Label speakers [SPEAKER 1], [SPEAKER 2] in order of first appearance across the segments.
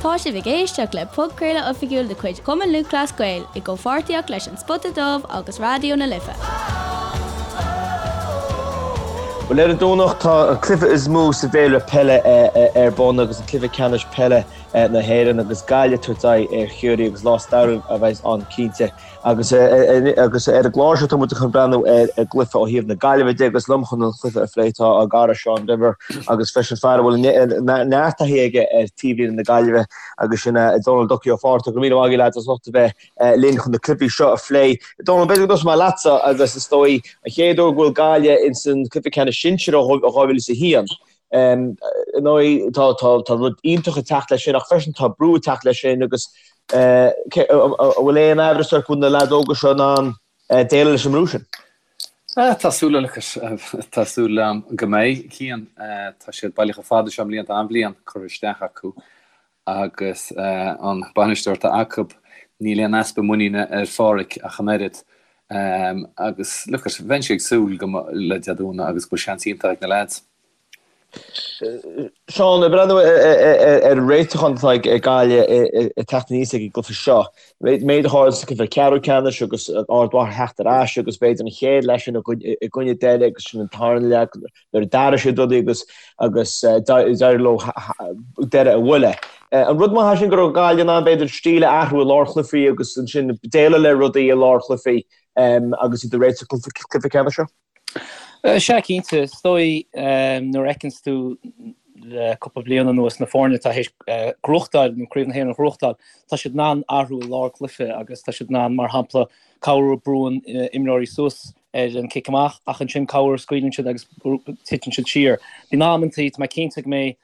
[SPEAKER 1] Tá sibh ag éisteacht le podchraoladh oifigiúil de chuid Chumann Lúthchleas Gael i gcomhpháirtíocht leis An Spota Dubh agus Raidió na Life.
[SPEAKER 2] Bhuel, ar an Domhnach tá an cluiche is mó sa bhféilire peile ar bun agus an cluiche ceannais peile na hÉireann agus Gaillimh ag tabhairt aghaidh ar Chiarraí agus lá stairiúil a bheas ann cinnte. Agus agus ar an gclár seo tá muid chun breathnú ar an gcluiche ó thaobh na Gaillimhe de agus liom chun an chluiche a phlé tá ár gcara Seán Denvir agus freisin fear a bhfuil neart taithí aige ar taobhlíne na Gaillimhe agus sin Dónal Ducky Ó Fátharta. Go raibh míle maith agaibh lads as ucht a bheith linn chun na cluichí seo a phlé. Dónal, b'fhéidir go dtosóidh mé leatsa agus is dóigh an chéad uair go bhfuil Gaillimh ins an cluiche ceannais sinsir ó 2001. Ar ndóigh, tá rud iontach ag teacht leis sin ach freisin tá brú ag teacht leis sin agus an bhfuil aon amhras ort go bhfuil na leaids óga seo in ann déileáil leis an mbrú sin?
[SPEAKER 3] Tá súil tá súil agam go mbeidh, Cian. Tá siad bailithe chomh fada seo i mbliana, tá an-bhliain curtha isteach acu agus an bainisteoir atá acu, níl aon easpa muiníne ar Pháraic ach an oiread. Agus look it, bheinnse ag súil go le Dé Domhnaigh agus go bhfuil seans iontach ag na leaids.
[SPEAKER 2] Seán, ag breathnú ar an réiteachán atá ag Gaillimh ag teacht aníos ag an gcluiche seo, méid a tharla sa gcluiche ceathrú ceannais agus Ard Mhacha theacht ar ais agus b'fhéidir an chéad leath sin i gcoinne Doire agus sin an tarna leath nuair a d'athraigh siad rudaí agus agus d'éirigh leo Doire a bhualadh. An rud maith é sin go raibh Gaillimh in ann b'fhéidir stíl a athrú i lár chluichí agus ansin déileáil le rudaí i lár chluichí agus iad ag réiteach don chluiche ceannais seo?
[SPEAKER 4] Sea, cinnte. Is dóigh nuair a fheiceanns tú le cúpla bliain anuas na foirne atá théis gnóthachtáil nó Craobh na hÉireann a ghnóthachtáil, tá siad in ann athrú i lár cluiche agus tá siad in ann, mar shampla, corruair brúann imreoirí suas ar an cic amach ach ansin corruair scaoileann siad agus titeann siad siar. Bíonn amantaí, tá mé cinnte go mbeidh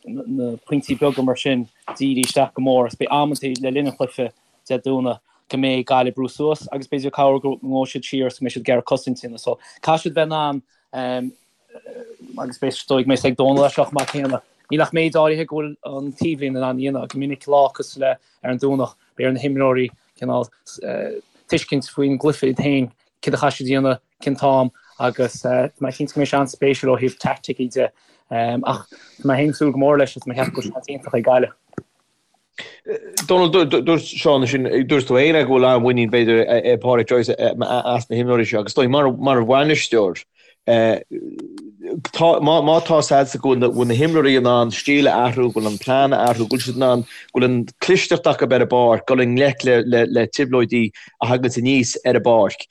[SPEAKER 4] na pointí beaga mar sin dírithe isteach go mór agus beidh amantaí le linn an chluiche Dé Domhnaigh go mbeidh Gaillimh ag brú suas agus b'fhéidir corruair go ngabhfaidh siad siar agus go mbeidh siad ag iarraidh cosaint a dhéanamh. So caithfidh siad bheith in ann agus beidh is dóigh go mbeidh a fhios ag Dónal é seo chomh maith céanna. Níl ach méid áirithe go bhfuil an taobhlíne in ann a dhéanamh. Go minic lá cosúil le ar an Domhnach beidh ar na himreoirí cineál tuiscint faoin gcluiche iad féin, céard a chaithfidh siad a dhéanamh, cén t-am agus tá mé cinnte go mbeidh sé an-spéisiúil ó thaobh teaicticí de. Ach tá mé féin ag súil go mór leis agus tá mé ag ceapadh go bhfuil seans iontach ag Gaillimh.
[SPEAKER 2] Dónal, dúirt Seán ansin, dúirt tú féin go bhfuil an-mhuinín b'fhéidir ag Pádraic Joyce as na himreoirí seo agus is dóigh mar bhainisteoir, tá, má tá a fhios agatsa go bhfuil na himreoirí in ann stíl a athrú, go bhfuil an plean a athrú, go bhfuil siad in ann, go bhfuil an clisteacht acu ar an bpáirc, dul i ngleic le trioblóidí a thaganns aníos ar an bpáirc.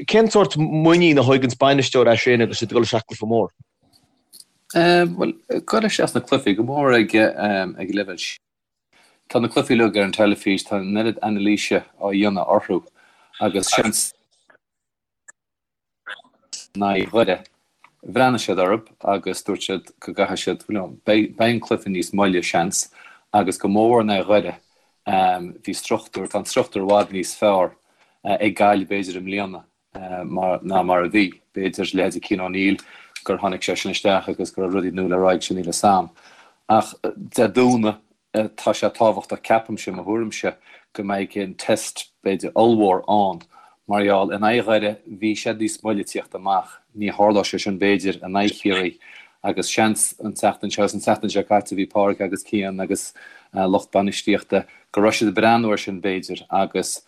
[SPEAKER 2] Cén sórt muinín a thóganns bainisteoir as sin agus iad ag dul isteach i gcluiche mór?
[SPEAKER 3] Bhuel, dul isteach sna cluichí, go mór ag ag leibhéal sin. Tá na cluichí uilig ar an teilifís, tá an oiread anailíse á dhéanamh orthu agus seans in aghaidh Dhoire, bhreathnaigh siad orthu agus dúirt siad go gcaithfidh siad, you know, beidh an cluiche níos moille, seans, agus go mór in aghaidh Dhoire, bhí struchtúr, tá an struchtúr i bhfad níos fearr ag Gaillimh b'fhéidir i mbliana. mar ná mar a bhí. B'fhéidir, leithéidí Cian O'Neill, gur tháinig seisean isteach agus go raibh rudaí nua le rá aige, níl 'fhios a'm. Ach Dé Domhnaigh, tá sé tábhachtach, ceapaimse, mo thuairimse, go mbeidh an test, b'fhéidir, ollmhór ann. Mar gheall, in aghaidh Dhoire, bhí siad níos moille tíocht amach. Ní tharlódh sé sin, b'fhéidir, in aghaidh Chiarraí. Agus seans, an tseachtain seo, agus an tseachtain seo caite, bhí Pádraic agus Cian agus lucht bainistíochta, go raibh siad ag breathnú air sin, b'fhéidir, agus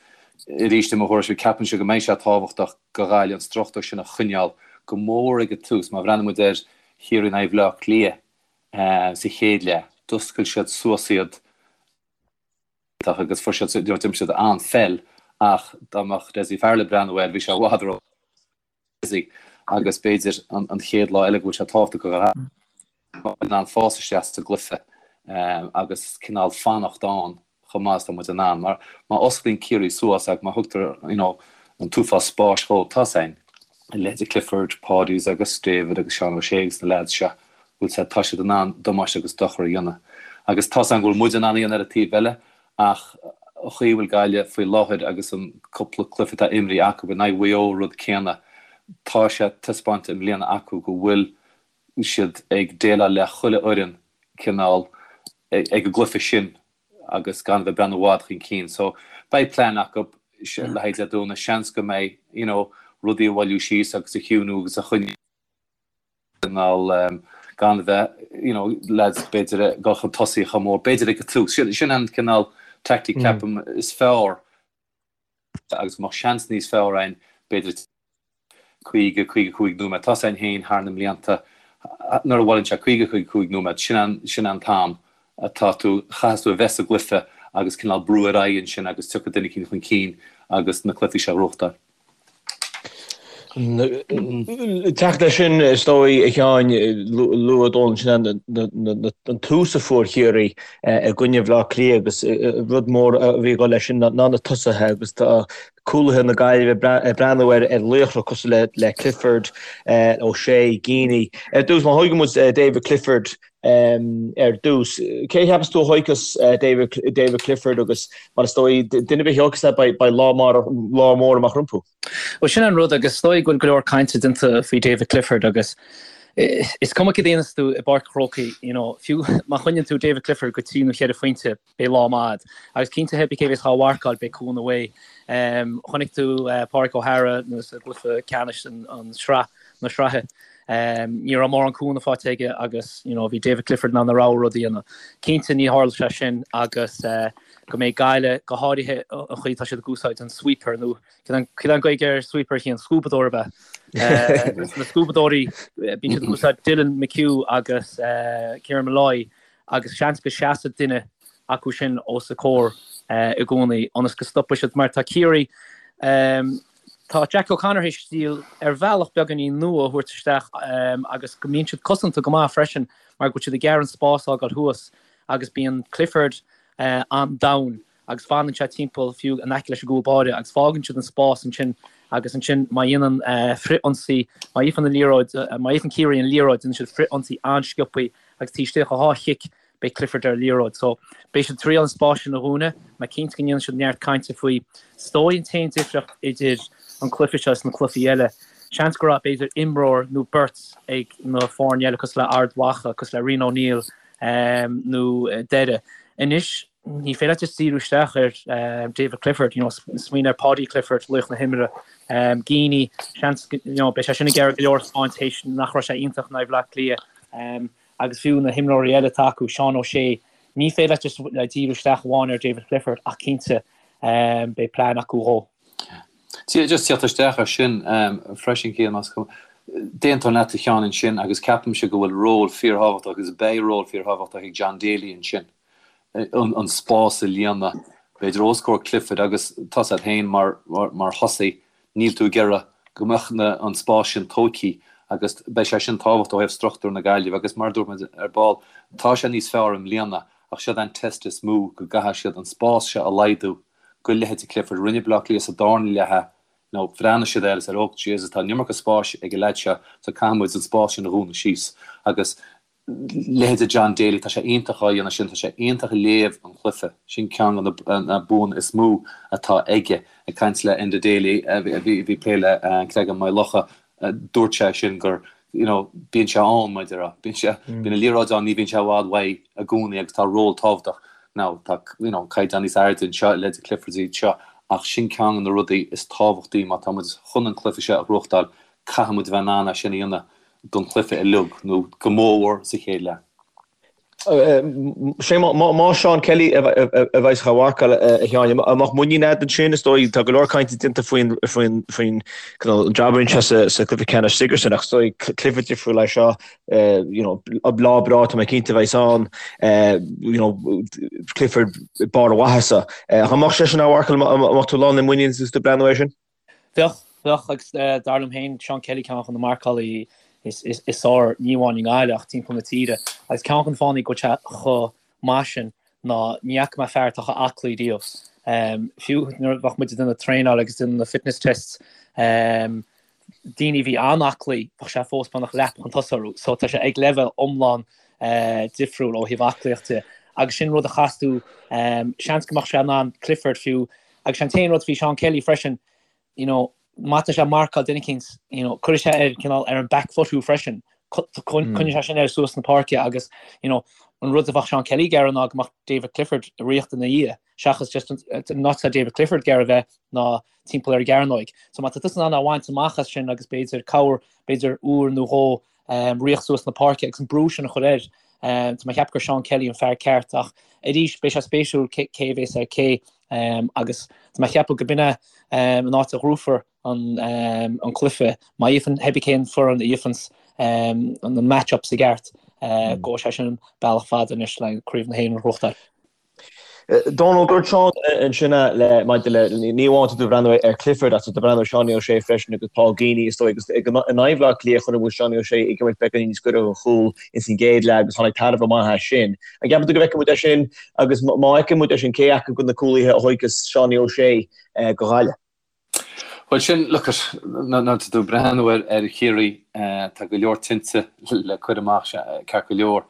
[SPEAKER 3] Arís, i mo thuairimse, ceapaimse go mbeidh sé tábhachtach do Ghaillimh an struchtúr sin a choinneáil, go mór ag an tús. Má bhreathnaíonn muid ar Chiarraí in aghaidh Bhaile Átha Cliath sa chéad leath, d'oscail siad suas iad agus fuair siad, you know, d'imir siad an-pheil ach dá mbeadh Dessie Farrell ag breathnú air, bhí sé i bhfad ró busy agus b'fhéidir an chéad lá eile go bhfuil sé tábhachtach go mbeadh in ann fás isteach sa gcluiche agus cineál fanacht ann chomh maith is atá muid in ann. Mar má osclaíonn Ciarraí suas agus má thugtar you know an t-uafás spáis dhóibh, tá's a'inn, a leithéidí Clifford, Pádies agus David agus Seán O'Shea agus na leaids seo, bhfuil 's a'd, tá siad in ann damáiste agus dochar a dhéanamh. Agus tá's a'm go bhfuil muid in ann a dhéanamh ar an taobh eile Ach an chaoi a bhfuil Gaillimh faoi láthair agus an cúpla cluiche atá imrithe acu in aghaidh Mhaigh Eo rud céanna, tá sé taispeánta i mbliana acu go bhfuil siad ag déileáil le chuile fhoireann cineál ag an gcluiche sin agus gan a bheith ag breathnú i bhfad chun cinn. So beidh plean acu le haghaidh Dé Domhnaigh. Seans go mbeidh you know rudaí a bhailiú síos agus a chiúnú agus a choinneáil. gan a bheith, you know, lads b'fhéidir ag dul chun tosaigh chomh mór, b'fhéidir ag an tús. Sin, sin an cineál tactic ceapaim is fearr agus go mbeadh seans níos fearr againn b'fhéidir 50, 55 nóiméad. Tá a fhios againn féin thar na mblianta nuair a bhuaileann sé 50, 55 nóiméad, sin an, sin an t-am atá tú, chaithfeas tú a bheith sa gcluiche agus cineál brú ar aghaidh ansin agus tiocfaidh duine eicínt chun cinn agus na cluichí seo a ghnóthachtáil.
[SPEAKER 2] Teacht leis sin, is dóigh, a Sheáin, luaigh Dónal ansin an tús a fuair Ciarraí i gcoinne Bhaile Átha Cliath agus rud mór a bhí ag dul leis sin ná na tosaithe agus tá cúlaithe na Gaillimhe ag breathnú ar laochra cosúil le Clifford, O'Shea, Geaney. Ar dtús, má thógann muid David Clifford ar dtús, cé a cheapas tú a thógfas David Clifford agus mar is dóigh, duine ar bith a thógfas é beidh lá mór amach rompu.
[SPEAKER 4] Bhuel, sin an rud agus is dóigh go bhfuil go leor cainte déanta faoi David Clifford agus is cuma cad a dhéanas tú i bPáirc an Chrócaigh, you know, fiú má choinníonn tú David Clifford go trí nó cheithre phointe, beidh lá maith agat. Agus cinnte pé bith cé bhéas dhá mharcáil beidh cúnamh uaidh. Chonaic tú Pádraig O'Hara nuair sa gcluiche ceannais an sraith na sraithe. Ní raibh mórán cúnamh faighte aige agus you know bhí David Clifford in ann a rogha rud a dhéanamh. Cinnte ní tharla sé sin agus go mbeidh Gaillimh go háirithe an chaoi atá siad ag úsáid an sweeper nó cad é an Gaeilge ar sweeper a Chian? Scuabadóir ab ea? Na scuabadóirí bíonn siad ag úsáid Dylan McHugh agus Kieran Molloy agus seans go seasfaidh duine acu sin os a comhair i gcónaí ionas go stopfaidh siad mar tá Ciarraí tá Jack O'Connor théis stíl ar bhealach beagáinín nua a thabhairt isteach agus go mbíonn siad cosanta go maith freisin mar go bhfuil siad ag iarraidh an spás a fhágáil thuas agus bíonn Clifford an-domhain agus fanann sé timpeall fiú in aice leis an gcúl báire agus fágann siad an spás ansin agus ansin má dhéanann frith-ionsaí, má fhaigheann an liathróid, má fhaigheann Ciarraí an liathróid déanann siad frith-ionsaí an-sciobthaí agus taobh istigh de dhá chic beidh Clifford ar an liathróid. So beidh siad ag triail an spás sin a dhúnadh, mé cinnte go ndéanann siad neart cainte faoi. Is dóigh an t-aon difríocht idir an cluiche seo is na cluichí eile, seans go raibh b'fhéidir imreoir nó beirt ag na foirne eile cosúil le Ard Mhacha, cosúil le Rian O'Neill nó Doire. Anois ní féidir leat just díriú isteach ar David Clifford, you know, smaoinigh ar Paudie Clifford, laoch na himeartha, Geaney, seans, you know, beidh sé sin ag iarraidh go leor a thaispeáint théis nach raibh sé iontach in aghaidh Bhaile Átha Cliath, agus fiú na himreoirí eile atá acu, Seán O'Shea, ní féidir leat just díriú isteach amháin ar David Clifford ach cinnte beidh plean acu dhó.
[SPEAKER 3] Just teacht isteach ar sin freisin, Cian, más cuma. D'aontóinn leat a Sheáin ansin agus ceapaimse go bhfuil ról fíorthábhachtach agus beidh ról fíorthábhachtach ag John Daly ansin. an spás a líonadh, b'fhéidir os comhair Clifford agus tá a fhios agat féin mar mar thosaí, níl tú ag iarraidh go mbeadh na an spás sin tógtha agus beidh sé sin tábhachtach ó thaobh struchtúr na Gaillimhe agus mar a dúirt muid ar ball, tá sé níos fearr i mbliana ach siod an test is mó go gcaithfidh siad an spás seo a laghdú go leithéidí Clifford. Rinne Baile Átha Cliath sa darna leath é, nó bhreathnaigh siad air agus ar oh Jesus tá an iomarca spáis ag an leaid seo so caithfidh muid an spás sin a dhúnadh síos agus leithéide John Daly, tá sé iontach á dhéanamh sin, tá sé iontach ag léamh an chluiche, sin ceann de na buanna is mó atá aige. Ag caint le Enda Daly, a bhí ag plé le Creagán Maigh Locha, dúirt sé sin gur, you know, bíonn sé ann, mar a déarfá, bíonn sé, bíonn an liathróid ann, ní bhíonn sé i bhfad uaidh i gcónaí agus tá ról tábhachtach. Now, tá, you know, caighdeán níos airde anseo, leithéide Clifford iad seo, ach sin ceann de na rudaí is tábhachtaí má tá muid chun an cluiche seo a ghnóthachtáil, caithfidh muid a bheith in ann é sin a dhéanamh. don chluiche uilig, nó go mórmhór sa chéad leath.
[SPEAKER 2] Sé má Seán Kelly a bheas á mharcáil a Sheáin, an mbeadh muinín agat ansin? Is dóigh, tá go leor cainte déanta faoin faoin an jab a rinne sé sa chluiche ceannais Sigerson ach is dóigh cluiche difriúil é seo, you know, lá breá tá mé cinnte a bheas ann, you know, Clifford barr a mhaitheasa. Ach an mbeadh seisean á mharcáil, an mbeadh tú lán le muinín agus tú ag breathnú air sin?
[SPEAKER 4] Bheadh, bheadh, agus dar liom féin, Seán Kelly ceann de na marcálaí is fearr, ní amháin i nGaillimh ach timpeall na tíre. Agus ceann de na fáthanna go bhfuil sé chomh maith sin ná ní fhaca mé fear atá chomh aclaí riamh. Fiú nuair a bheadh muid ag déanamh traenáil agus déanamh na fitness tests, daoine a bhí an-aclaí, bheadh sé fós beagnach leath chun tosaigh orthu. So tá sé ag leibhéal iomlán difriúil ó thaobh aclaíocht de. Agus sin rud a chas tú, seans go mbeadh sé in ann Clifford fiú, Agus an t-aon rud faoi Seán Kelly freisin, you know, má tá sé ag marcáil duine eicínt, you know, cuirfidh sé ar cineál ar an back foot thú freisin. Coinneoidh sé sin air suas na páirce agus, you know, an rud a bheadh Seán Kelly ag iarraidh ná go mbeadh David Clifford ag ritheacht ina dhiaidh, seachas just an áit atá David Clifford ag iarraidh bheith ná timpeall ar an gcearnóig. So má tá tusa in ann é a bhaint amach as sin agus b'fhéidir cabhair, b'fhéidir uair nó dhó. Ritheacht suas na páirce agus an brú sin a chur air. Tá mé ag ceapadh gur Seán Kelly an fear ceart ach arís beidh sé spéisiúil cé a bhéas ar cé agus tá mé ag ceapadh go b'in é an áit a ghnóthófar an cluiche. Má fhaigheann pé ar bith cén foireann a fhaigheanns na match-ups i gceart, gabhfaidh sé sin bealach fada anois le Craobh na hÉireann a ghnóthachtáil.
[SPEAKER 2] Dónal, dúirt Seán ansin le maidir le, ní amháin tá tú ag breathnú ar Clifford ach tá tú ag breathnú ar Seánie O'Shea freisin agus Paul Geaney is dóigh agus in aghaidh Bhaile Átha Cliath chonaic muid Seánie O'Shea ag imirt beagáinín níos gaire don chúl ins an gcéad leath agus tháinig tairbhe maith as sin. An gceapann tú go bhfeicfidh muid é sin agus má fheiceann muid é sin cé acu de na cúlaithe a thóigfeas Seánie O'Shea do Ghaillimh?
[SPEAKER 3] Bhuel sin, look at, nuair atá tú ag breathnú ar ar Chiarraí, tá go leor tinte le cur amach, ceart go leor.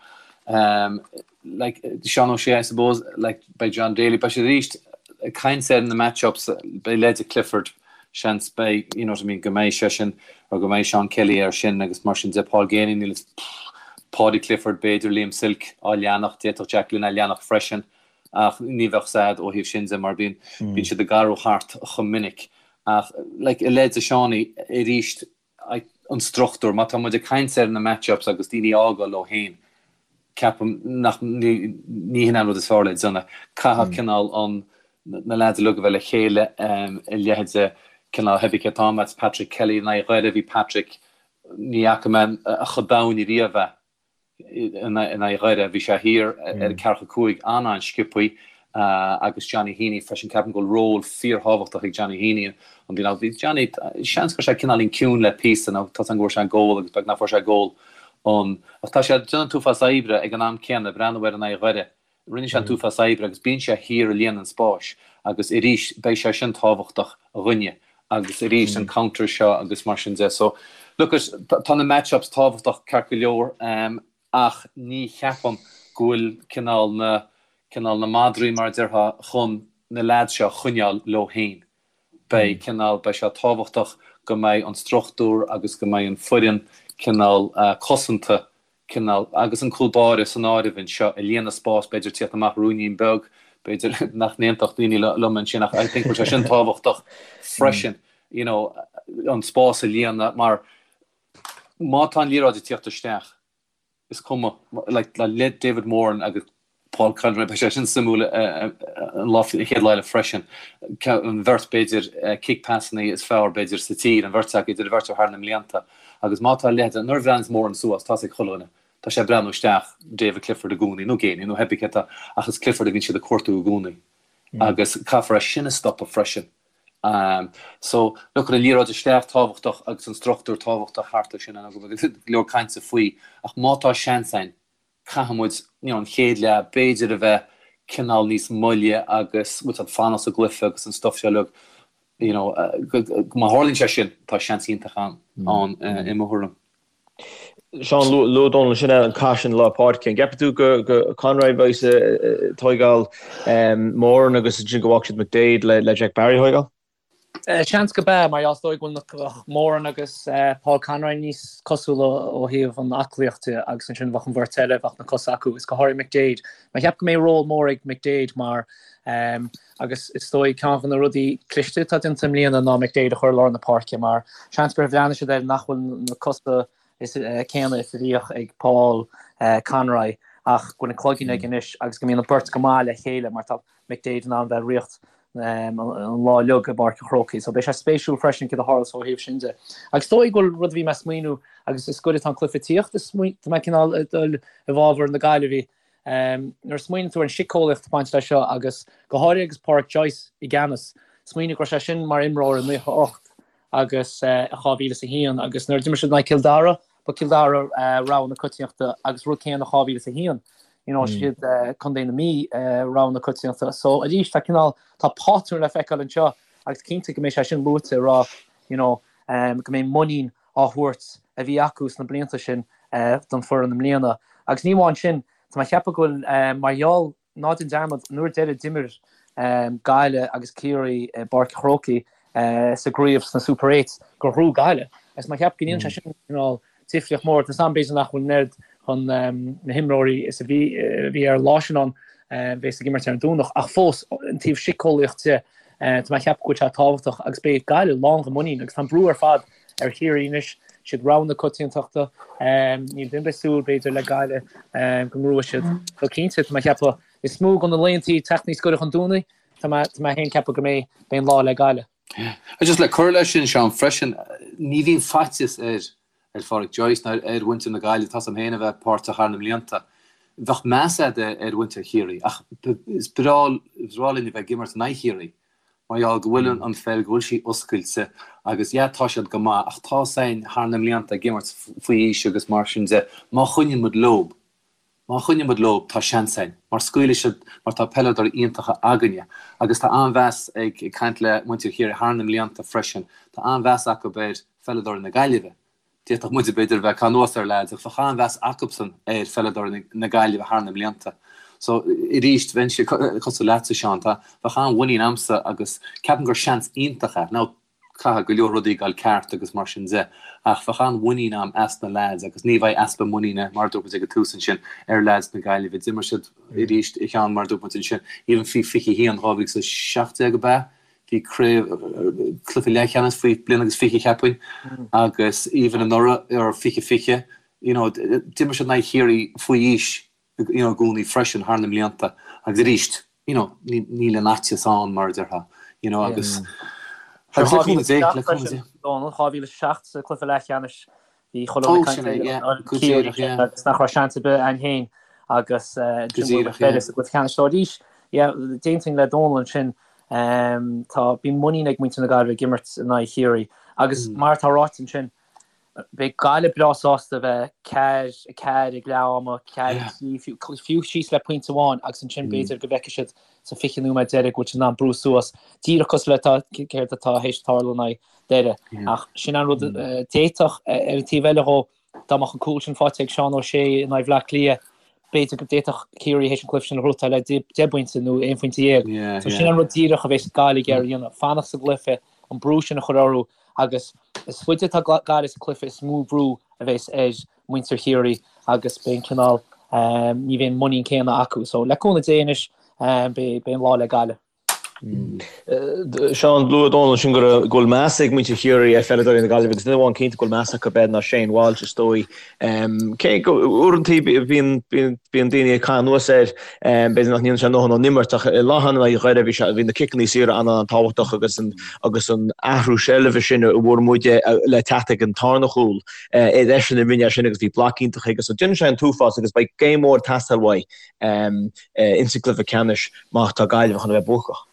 [SPEAKER 3] Like, Seán O'Shea, I suppose, like, beidh John Daly, beidh siad arís ag caint ar na match-ups, beidh leide Clifford, seans, beidh, you know what I mean, go mbeidh seisean, or go mbeidh Seán Kelly air sin agus mar sin de, Paul Geaney, níl, Paudie Clifford, b'fhéidir Liam Silke á leanacht, d'fhéadfadh Jack Glynn á leanacht freisin. Ach ní bheadh sad ó thaobh sin de mar bíonn bíonn siad ag athrú thart chomh minic. Ach like i leith de Seánie arís an struchtúr, má tá muid ag caint ar na match-ups agus daoine a fhágáil leo féin, ceapaim nach ní ní hin an rud is fearr le déanamh. Caithfidh cineál an na lads uilig a bheith le chéile i leith de cineál pé ar bith cé atá agat, Patrick Kelly in aghaidh Dhoire, bhí Patrick ní fhaca mé chomh domhain ariamh é. in aghaidh Dhoire. Bhí sé thiar ar ceathracha 5 an-an-sciobthaí agus Johnny Heaney freisin. Ceapaim go bhfuil ról fíorthábhachtach ag Johnny Heaney an bhliain seo. Bhí Johnny, seans go raibh sé cineáilín ciúin le píosa nó tá a fhios agam go bhfuair sé gól agus beag nach bhfuair sé gól ann. Ach tá sé ag déanamh an t-uafás oibre ag an am céanna, breathnú air in aghaidh Dhoire. Rinne sé an t-uafás oibre agus bíonn sé thiar ag líonadh an spáis agus arís beidh sé sin tábhachtach dhúinne agus arís an counter seo agus mar sin de. So look at, tá na match-ups tábhachtach ceart go leor ach ní cheapaim go bhfuil cineál na, cineál na madraí mar a déarfá chun na leaids seo a choinneáil leo féin. Beidh cineál, beidh sé tábhachtach go mbeidh an struchtúr agus go mbeidh an foireann cineál cosanta cineál, agus an cúl báire san áireamh anseo, ag líonadh spás, b'fhéidir tíocht amach ruainnín beag, b'fhéidir nach n-aontódh daoine liom ansin ach I think go bhfuil sé sin tábhachtach freisin, you know, an spás a líonadh mar má tá an liathróid ag tíocht isteach, is cuma, like, le David Moran agus Paul Conroy, beidh sé sin suimiúil an lá, an chéad lá eile freisin. An bheirt b'fhéidir kick passanna is fearr b'fhéidir sa tír, an bheirt acu, idir an bheirt acu thar na mblianta. Agus má tá leithéid, nuair a bhreathnaíonns Moran suas, tá's ag chuile dhuine, tá sé ag breathnú isteach David Clifford i gcónaí, nó Geaney, nó pé ar bith cé atá, ach is Clifford a bhíonn siad ag cuartú i gcónaí. Agus caithfear é sin a stopadh freisin. So, look, an liathróid isteach tábhachtach agus an struchtúr tábhachtach thart air sin, go bhfuil go leor cainte faoi, ach má tá seans againn, caithfidh muid, you know, an chéad leath, b'fhéidir a bheith cineál níos moille agus, bhfuil siad fanacht sa gcluiche agus an stuff seo uilig, you know, má tharlaíonn sé sin, tá seans iontach ann, i mo thuairim.
[SPEAKER 2] Seán, luaigh Dónal ansin an cath sin lár páirce. An gceapann tú go Conroy a bheas ag tóigeáil Moran agus ansin go bhfágfaidh siad McDaid le Jack Barry a thóigeáil?
[SPEAKER 4] Seans go b'ea, mar is dóigh go bhfuil Moran agus Paul Conroy níos cosúla ó thaobh an aclaíocht de agus ansin bheadh an bheirt eile, bheadh na cosa acu, is go háirithe McDaid. Mé ag ceapadh go mbeidh ról mór ag McDaid mar agus is dóigh ceann de na rudaí cliste atá déanta i mbliana ná McDaid a chur i lár na páirce mar seans gur bhreathnaigh siad air nach bhfuil na cosa is céanna is a bhíodh ag Paul Conroy ach go bhfuil an cloigeann aige anois agus go mbíonn an beirt go maith le chéile mar tá McDaid in ann bheith ag ritheacht an lá uilig i bPáirc an Chrócaigh. So beidh sé spéisiúil freisin céard a tharlós ó thaobh sin de. Agus is dóigh go bhfuil rud a bhí mé ag smaoineamh agus is goirid atá an cluiche ag tíocht, is tá mé cineál ag dul i bhfabhar na Gaillimhe. Nuair a smaoiníonn tú ar an siceolaíocht ag baint leis seo agus go háirithe agus Pádraic Joyce i gceannas, smaoinigh go raibh sé sin mar imreoir i 98 agus i 2001 agus nuair a d'imir siad in aghaidh Cill Dara, ba Cill Dara rogha na coitiantachta agus rud céanna 2001, you know, siad Contae na Mí rogha na coitiantachta. So arís tá cineál, tá pátrún le feiceáil anseo agus cinnte go mbeidh sé sin luaite ag rá, you know, go mbeidh muinín á thabhairt a bhí acu sna blianta sin don foireann i mbliana. Agus ní amháin sin, tá mé ag ceapadh go bhfuil mar gheall, Ná déan dearmad, an uair deiridh d'imir Gaillimh agus Ciarraí i bPáirc an Chrócaigh sa gcraobh sna Super Eights gur ghnóthaigh Gaillimh. Agus mé ag ceapadh go ndéanann sé sin cineál difríocht mór. Tá a fhios agam b'fhéidir nach bhfuil an oiread chun na himreoirí is a bhí a bhí ar an lá sin ann bheas ag imirt ar an Domhnach ach fós an taobh siceolaíocht de tá mé ag ceapadh go bhfuil sé tábhachtach agus beidh Gaillimh lán de mhuinín agus tá an brú ar fad ar Chiarraí anois. Siad rogha na coitiantachta. Níl duine ar bith ag súil, b'fhéidir, le Gaillimh go ngnóthóidh siad. So cinnte, tá mé ag ceapadh, is mó de na laethanta teacht níos gaire chun Domhnaigh, tá mé féin ag ceapadh go mbeidh an lá le Gaillimh.
[SPEAKER 3] Just le cur leis sin, Seán, freisin, ní bhíonn faitíos ar ar Phádraic Joyce ná ar mhuintir na Gaillimhe, tá's a'm féin a bheith páirteach thar na mblianta. Bheadh meas a'd ar mhuintir Chiarraí ach is breá is breá linn a bheith ag imirt in aghaidh Chiarraí mar gheall go bhfuil an pheil, go bhfuil sí oscailte agus yeah tá siad go maith ach tá's a'inn thar na mblianta ag imirt faoi aois agus mar sin de, má choinníonn muid leob, Má choinníonn muid leo, tá seans againn, mar scaoilfidh siad, mar tá peileadóirí iontacha againne. Agus tá an-mheas ag, ag caint le muintir Chiarraí thar na mblianta freisin, tá an-mheas acu ar pheileadóirí na Gaillimhe. D'fhéadfadh muide, b'fhéidir, a bheith ag caitheamh anuas ar leaids, ach bheadh an-mheas acubsan ar pheileadóirí na Gaillimhe thar na mblianta. So, arís, bheinnse cosúil leatsa, Seán, tá, bheadh an-mhuinín a'msa agus ceapaim gur seans iontach é. Now, Caithfidh go leor rudaí dul ceart agus mar sin de, ach bheadh an-mhuinín a'm as na leaids agus ní bheidh easpa muiníne, mar a dúirt muid ag an tús ansin, ar leaids na Gaillimhe. D'imir siad arís a Sheáin, mar a dúirt muid ansin, even faoi 21, 2017 ab ea? Bhí craobh, cluiche leathcheannais faoi bliain agus 20 cheapfainn, agus even anuraidh, or 2020, you know, d'imir siad in aghaidh Chiarraí faoi aois you know, i gcónaí freisin thar na mblianta agus arís, you know, níl an fhaitíos ann mar a déarfá, you know, agus
[SPEAKER 4] agus le cúnamh Dé, le cúnamh Dé. 2007 sa cluiche leathcheannais bhí chuile dhuine ag caint ar Ciarraí agus nach raibh seans ar bith againn féin agus ansin bhuail sa gcluiche ceannais so arís, yeah, d'aontóinn le Dónal ansin, tá, bíonn muinín ag muintir na Gaillimhe ag imirt in aghaidh Chiarraí agus mar atá ráite ansin, Beidh Gaillimh breá sásta a bheith 4, 4 ag leath ama, 4, 3, fiú síos le pointe amháin agus ansin b'fhéidir go bhfeicfidh siad sa 20 nóiméad deiridh go bhfuil siad in ann brú suas, díreach cosúil le céard atá théis tarlú in aghaidh Doire. Ach sin an rud d'fhéadfadh, ar an taobh eile dhó, dá mbeadh an cúl sin faighte ag Seán O'Shea in aghaidh Bhaile Átha Cliath, b'fhéidir go d'fhéadfadh Ciarraí théis an cluiche sin a ghnóthachtáil le 10 bpointe nó 11 phointe. So sin an rud díreach a bheas Gaillimh ag iarraidh a dhéanamh, fanacht sa gcluiche, an brú sin a chur orthu agus is faide atá Gaillimh sa chluiche is mó brú a bheas ar mhuintir Chiarraí agus beidh an cineál, ní bheidh an muinín céanna acu. So le cúnamh Dé anois beidh an lá le Gaillimh.
[SPEAKER 2] Seán, luaigh Dónal ansin go bhfuil meas ag muintir Chiarraí ar pheileadóirí na Gaillimhe agus duine amháin cinnte go bhfuil meas acu air ná Shane Walsh is dóigh. Cé go uaireanta bíonn daoine ag caitheamh anuas air, b'fhéidir nach ndéanann sé a ndóthain ón imirt ach an lá cheana in aghaidh Dhoire bhí sé bhí na ciceanna saora an-an-tábhachtach agus an agus an athrú seilbhe sin a bhfuair muid le teacht ag an tarna chúl is eisean a rinne é sin agus bhí bloc iontach aige so déanann sé an t-uafás agus beidh game mór ag teastáil uaidh ins an gcluiche ceannais má tá Gaillimh chun a bheith buacach.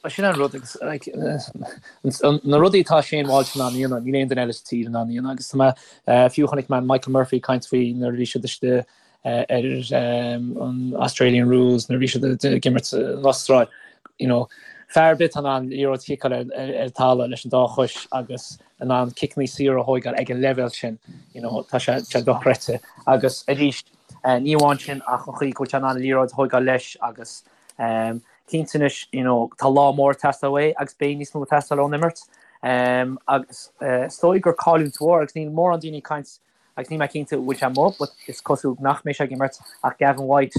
[SPEAKER 4] Sin an rud agus like na rudaí atá Shane Walsh in ann a dhéanamh, níl aon duine eile sa tír in ann a dhéanamh agus tá mé, fiú chonaic mé Michael Murphy ag caint faoi nuair a bhí siad istigh ar an Australian Rules nuair a bhí siad ag imirt san Astráil, you know, fear ar bith atá in ann liathróid a chiceáil ar an talamh leis an dá chois agus in ann ciceanna saora a thóigeáil ag an leibhéal sin, you know, tá sé sé dochreidte. Agus arís, ní amháin sin ach an chaoi go bhfuil sé in ann an liathróid a thóigeáil leis agus cinnte anois, you know, tá lá mór ag teastáil uaidh agus beidh níos mó ag teastáil ón imirt. Agus is dóigh gur cailliúint mhór agus níl mórán daoine ag caint agus níl mé cinnte an bhfuil sé amuigh but is cosúil nach mbeidh sé ag imirt ach Gavin White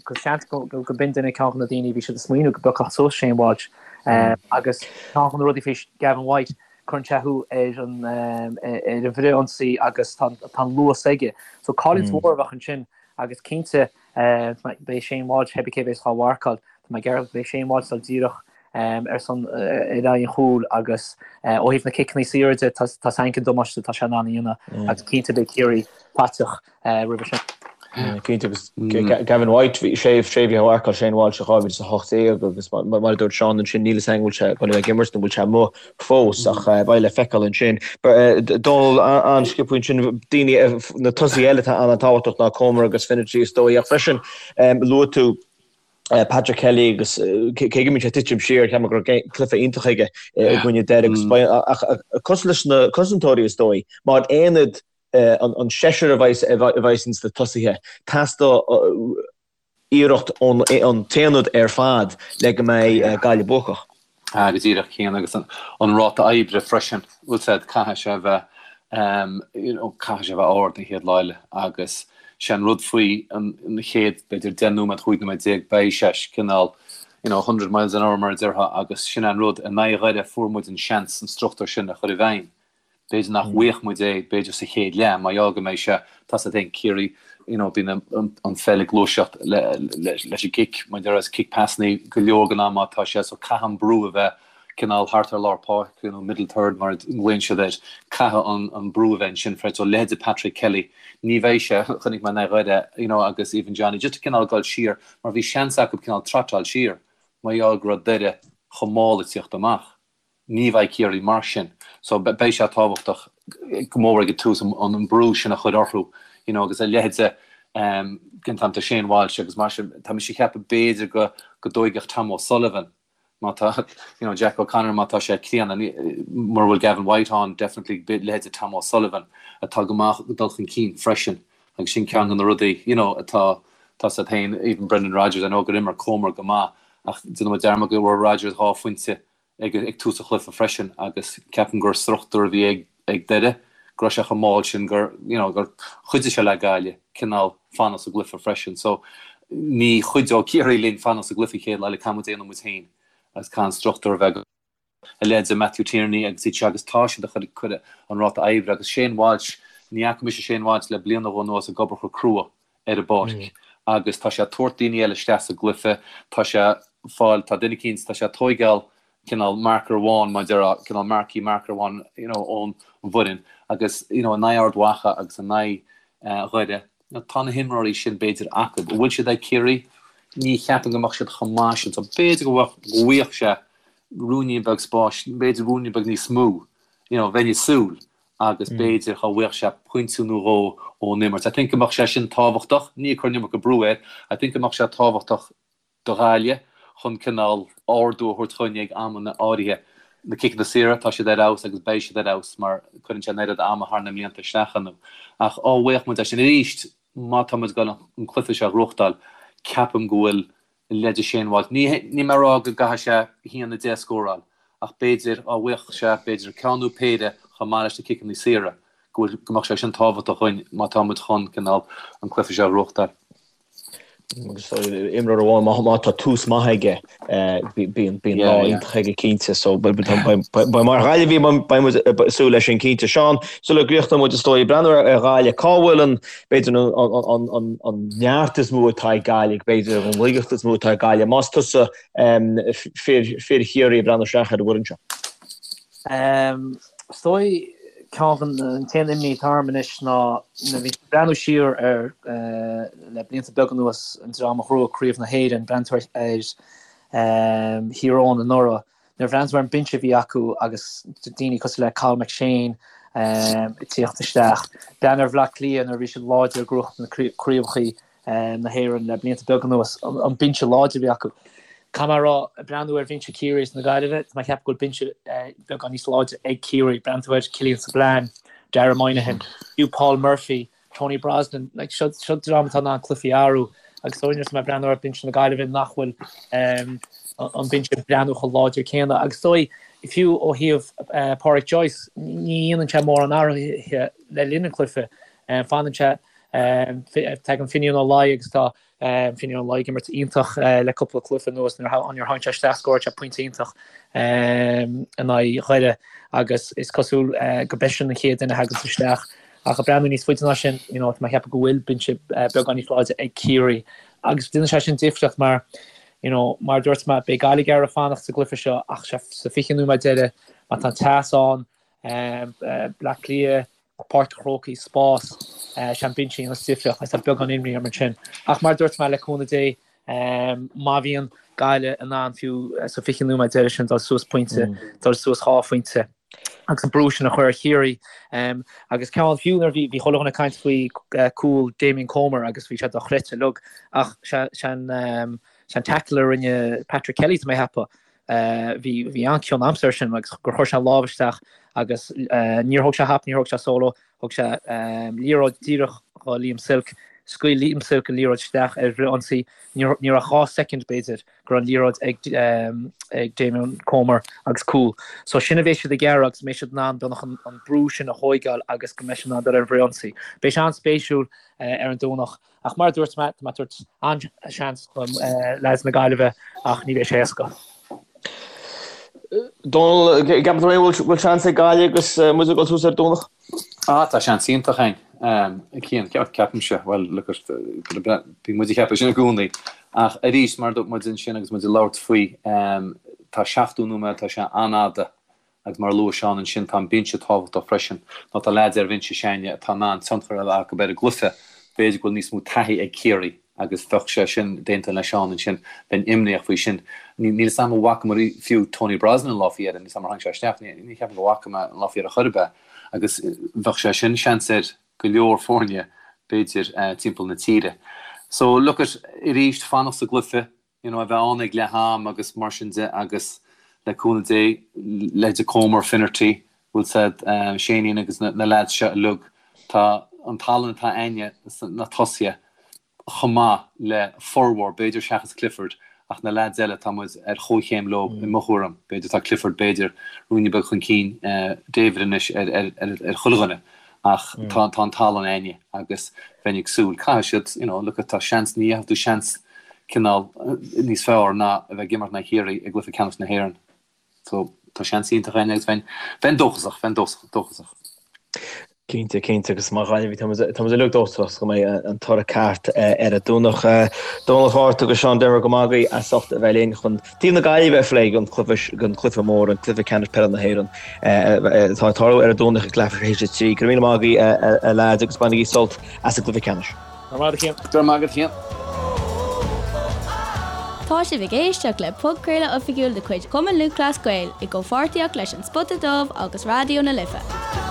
[SPEAKER 4] cos seans go go b'in duine ceann de na daoine a bhí siad ag smaoineamh go bpiocfadh suas Shane Walsh agus ceann de na rudaí faoi Gavin White cuireann sé thú ar an ar an bhfrithionsaí agus tá tá an luas aige. So cailliúint mhór a bheadh ansin agus cinnte Beidh Shane Walsh, pé cé a bheas á mharcáil, tá mé ag ceapadh beidh Shane Walsh ag dul díreach ar son ar aghaidh an chúil agus ó thaobh na ciceanna saora de tá a fhios againn cén damáiste atá sé in ann a dhéanamh agus cinnte beidh Ciarraí faiteach roimhe sin.
[SPEAKER 2] Cinnte agus Gavin White bhí sé sé bhí á mharcáil Shane Walsh i 2018 agus mar a dúirt Seán ansin níl a fhios againn an bhfuil sé ag dul a bheith ag imirt nó an bhfuil sé amuigh fós ach beidh le feiceáil ansin. Dónal an-sciobtha ansin, daoine, na tosaithe eile atá an-tábhachtach ná Comer agus Finnerty is dóigh ach freisin luaigh tú Patrick Kelly agus cé go mbíonn sé ag titim siar ceapaim go raibh cluiche iontach aige i gcoinne Doire agus ach cosúil leis na cosantóirí is dóigh mar aonad an seisear a bheas ins na tosaithe teastóidh iarracht ón t-aonad ar fad le go mbeidh Gaillimh buacach.
[SPEAKER 3] Ah, go díreach Cian, agus an ráta oibre freisin, bhfuil a fhios a'd, caithfidh sé a bheith, you know, caithfidh sé a bheith ard an chéad lá eile agus sé an rud faoi an chéad, b'fhéidir, 10 nóiméad, 15 nóiméad, beidh sé cineál, you know, 100 miles an hour mar a déarfá agus sin an rud, in aghaidh Dhoire fuair muid an seans an struchtúr sin a chur i bhfeidhm. B'fhéidir nach bhfaigheadh muid é, b'fhéidir sa chéad leath, mar gheall go mbeidh sé, tá 's agat féin, Ciarraí, you know, bíonn an pheil ag gluaiseacht leis an gcic, mar a déarfá, cic pasannaí go leor den am má tá sé, so caithfidh an brú a bheith cineál thart ar lár páirce, you know, middle third mar a nglaonn siad air, caithfidh an brú a bheith ansin freisin. So leithéide Patrick Kelly, ní bheidh sé, chonaic mé in aghaidh Dhoire, you know, agus even Johnny, just cineál dul siar, mar bhí seans acu cineál trotáil siar, mar gheall go raibh Doire chomh mall ag tíocht amach. Ní bheidh Ciarraí mar sin so beidh sé tábhachtach go mór ag an tús an brú sin a chur orthu you know agus a leithéide den t-am tá Shane Walsh agus mar sin tá mise ag ceapadh b'fhéidir go go dtóigfeadh Tom O'Sullivan má tá you know Jack O'Connor má tá sé críonna mura bhfuil Gavin White ann definitely leithéide Tom O'Sullivan atá go maith ag dul chun cinn freisin agus sin ceann de na rudaí you know atá tá 's agat féin even Brendan Rogers I know gur imir Comer go maith ach déanann muid dearmad go raibh Rogers 2 phointe ag tús an chluiche freisin agus ceapaim gur struchtúr a bhí ag ag Doire go raibh sé chomh mall sin gur you know gur chuidigh sé le Gaillimh cineál fanacht sa gcluiche freisin. So ní chuideoidh Ciarraí linn fanacht sa gcluiche chéad lá eile caithfidh muid déanamh muid féin agus caithfidh an struchtúr a bheith go a leithéid de Matthew Tierney agus iad seo agus tá siad ag cur an ráta oibre agus Shane Walsh ní fhaca mise Shane Walsh le bliain nó dhó anuas ag obair chomh crua ar an bpáirc agus tá sé ag tabhairt daoine eile isteach sa gcluiche, tá sé ag fáil, tá duine eicínt, tá sé ag tóigeáil cineál marker amháin mar a déarfá, cineál marquee marker amháin you know ón bhfoireann agus you know in aghaidh Ard Mhacha agus in aghaidh Dhoire, tá na himreoirí sin b'fhéidir acu. An bhfuil siad ag Ciarraí? Ní cheapaim go mbeadh siad chomh maith sin so b'fhéidir go bhfaigheadh sé ruainnín beag spáis, b'fhéidir ruainnín beag níos mó, you know, bheinn ag súil. agus b'fhéidir dá bhfaigheadh sé pointe nó dhó ón imirt. I think go mbeadh sé sin tábhachtach, ní ag cur an iomarca brú air, I think go mbeadh sé tábhachtach do Ghaillimh chun cineál ardú a thabhairt chugainn ag amanna áirithe. Na ciceanna saora, tá siad ar fheabhas agus beidh siad ar fheabhas mar cuireann sé an oiread ama thar na mblianta isteach iontu. Ach dá bhfaigheadh muid é sin arís, má tá muid ag dul an cluiche seo a ghnóthachtáil, ceapaim go bhfuil leithéide Shane Walsh. Ní níl mé ag rá go gcaithfidh sé 1-10 a scóráil, ach b'fhéidir, dá bhfaigheadh sé, b'fhéidir, ceann nó péire chomh maith leis na ciceanna saora, go bhfuil, go mbeadh sé sin tábhachtach dhuinn má tá muid chun, cineál, an cluiche seo a ghnóthachtáil.
[SPEAKER 2] Agus imreoir amháin, má tá tús maith aige, bíonn lá iontach aige cinnte. So beidh mar Ghaillimhigh, beidh muid ag súil leis sin cinnte. Seán, sula gcríochnóidh muid is dóigh, breathnú ar Ghaillimh, cá bhfuil an, b'fhéidir an neart is mó atá ag Gaillimh, b'fhéidir an laigeacht is mó atá ag Gaillimh, más tusa fir Chiarraí ag breathnú isteach ar an bhfoireann seo?
[SPEAKER 4] Is dóigh ceann an t-aon imní atá orm anois ná nuair a bhí breathnú siar ar le blianta beaga anuas an dream a ghnóthaigh Craobh na hÉireann, breathnaíonn tú ar Thír Eoghain anuraidh, Nuair a bhreathnaíonn tú ar an binse a bhí acu agus daoine cosúil le Cathal McShane ag tíocht isteach, breathnaigh ar Bhleá Cliath nuair a bhí siad láidir ag gnóthachtáil na craobhacha na hÉireann le blianta beaga anuas, an binse láidir a bhí acu. Caithfidh mé a rá, ag breathnú ar bhinse Chiarraí is na Gaillimhe, tá mé ag ceapadh go bhfuil binse beagán níos láidre ag Ciarraí. Breathnaíonn tú ar Killian Spillane, Dara Moynihan, fiú Paul Murphy, Tony Brosnan, like, seo, seo dream atá in ann cluichí a athrú agus is dóigh nuair atá mé ag breathnú ar binse na Gaillimhe nach bhfuil um, an binse ag breathnú chomh láidir céanna agus is dóigh fiú ó thaobh uh, Pádraic Joyce ní dhéanann sé mórán athruithe le linn an cluiche um, fanann sé um, tagann Finian Ó Laoi agus tá Finian Ó Laoi ag imirt iontach le cúpla cluiche anuas nuair a tháinig sé isteach scóráil sé pointe iontach in aghaidh Dhoire agus is cosúil go b'eisean an chéad duine a thaganns isteach. Ach ag breathnú níos faide ná sin, you know, tá mé ag ceapadh go bhfuil binse beagán níos láidre ag Ciarraí agus déanann sé sin difríocht mar, you know, mar a dúirt mé, beidh Gaillimh ag iarraidh fanacht sa gcluiche seo ach sa 20 nóiméad deiridh má tá an teas ann, Bleá Cliath, Páirc an Chrócaigh, spás, sé an binse a dhéanfas difríocht agus tá beagán imní orm ansin. Ach mar a dúirt mé, le cúnamh Dé, má bhíonn Gaillimh in ann fiú sa 20 nóiméad deiridh sin dul suas pointe, dul suas 2 phointe agus an brú sin a chur ar Chiarraí agus ceann fiú nuair a bhí chuile dhuine ag caint faoi cúl Damien Comer agus bhí sé dochreidte uilig ach sé an tackle a rinne Patrick Kelly tá mé a cheapadh Bhí bhí an-chion aimsire air sin agus gur chuir sé an lámh isteach agus níor thóg sé hap, níor thóg sé solo, thug sé liathróid díreach do Liam Silke, scaoil Liam Silke an liathróid isteach ar fhrith-ionsaí, ní raibh 2 soicind b'fhéidir go raibh an liathróid ag ag Damien Comer agus cúl. So sin a bheidh siad ag iarraidh agus mbeidh siad in ann beagnach an brú sin a thóigeáil agus go mbeidh siad in ann dul ar an bhfrith-ionsaí. Beidh sé an-spéisiúil ar an Domhnach. Ach mar a dúirt mé, tá mé ag tabhairt an-seans do leaids na Gaillimhe ach ní bheidh sé éasca.
[SPEAKER 2] Dónal, an gceapann tú féin bhfuil seans ag Gaillimh agus muid ag dul suas ar an Domhnach?
[SPEAKER 3] Ah, tá seans iontach againn. Cian, ceapaimse, bhuel, look at, bíonn muid ag ceapadh sin i gcónaí. Ach arís, mar a dúirt muid ansin agus muid ag labhairt faoi, tá 70 nóiméad, tá sé an-fhada Agus mar a luaigh Seán ansin, tá an binse tábhachtach freisin, nó tá leaids ar bhinse s'againne atá in ann tionchar a bheith acu ar an gcluiche. B'fhéidir go bhfuil níos mó taithí ag Ciarraí agus bheadh sé sin, d'aontóinn le Seán ansin, bheinn imníoch faoi sin. Níl 'fhios a'm an bhfacamar fiú Tony Brosnan an lá faoi dheireadh, níl 'fhios a'm ar tháinig sé isteach, ní cheapaim go bhfaca mé an lá faoi dheireadh chor ar bith agus bheadh sé sin seans ar go leor foirne b'fhéidir timpeall na tíre. So look at, arís, fanacht sa gcluiche, you know, a bheith ann ag leath am agus mar sin de agus le cúnamh Dé, leithéide Comer, Finnerty, bhfuil 's a'd, Seáinín agus na na leaids seo uilig, tá an tallann atá a'inne sna tosaithe chomh maith le formhór, b'fhéidir seachas Clifford, ach na leaids eile tá muid ar chomhchéim leo i mo thuairim, b'fhéidir tá Clifford b'fhéidir ruainne beag chun cinn David anois ar ar ar ar chuile dhuine. Ach tá tá an tallann a'inne agus bheinn ag súil, caithfidh siad, you know, look tá seans, ní gheobhaidh tú seans cineál níos fearr ná a bheith ag imirt in aghaidh Chiarraí i gcluiche ceannais na hÉireann. So tá seans iontach a'inne agus bheinn, bheinn dóchasach, bheinn dóchasach.
[SPEAKER 2] Cinnte, cinnte, agus mar Ghaillimhigh tá muid, tá muid uilig dóchasach go mbeidh an toradh ceart ar an Domhnach. Dónal Hart agus Seán Denvir go maith agaibh as ucht a bheith linn chun Taobh na Gaillimhe a phlé don chluiche mór, an cluiche ceannais peile na hÉireann, atá ag tarlú ar an Domhnach ag leathuair tar éis a 3. Go raibh míle maith agaibh, a leaids, agus bainigí sult as an gcluiche ceannais.
[SPEAKER 4] Go raibh maith agat,
[SPEAKER 3] a Chian. Go raibh maith agat, a Chian.
[SPEAKER 1] Tá sibh ag éisteacht le podchraoladh oifigiúil de chuid Chumann Lúthchleas Gael i gcomhpháirtíocht leis An Spota Dubh agus Raidió na Life.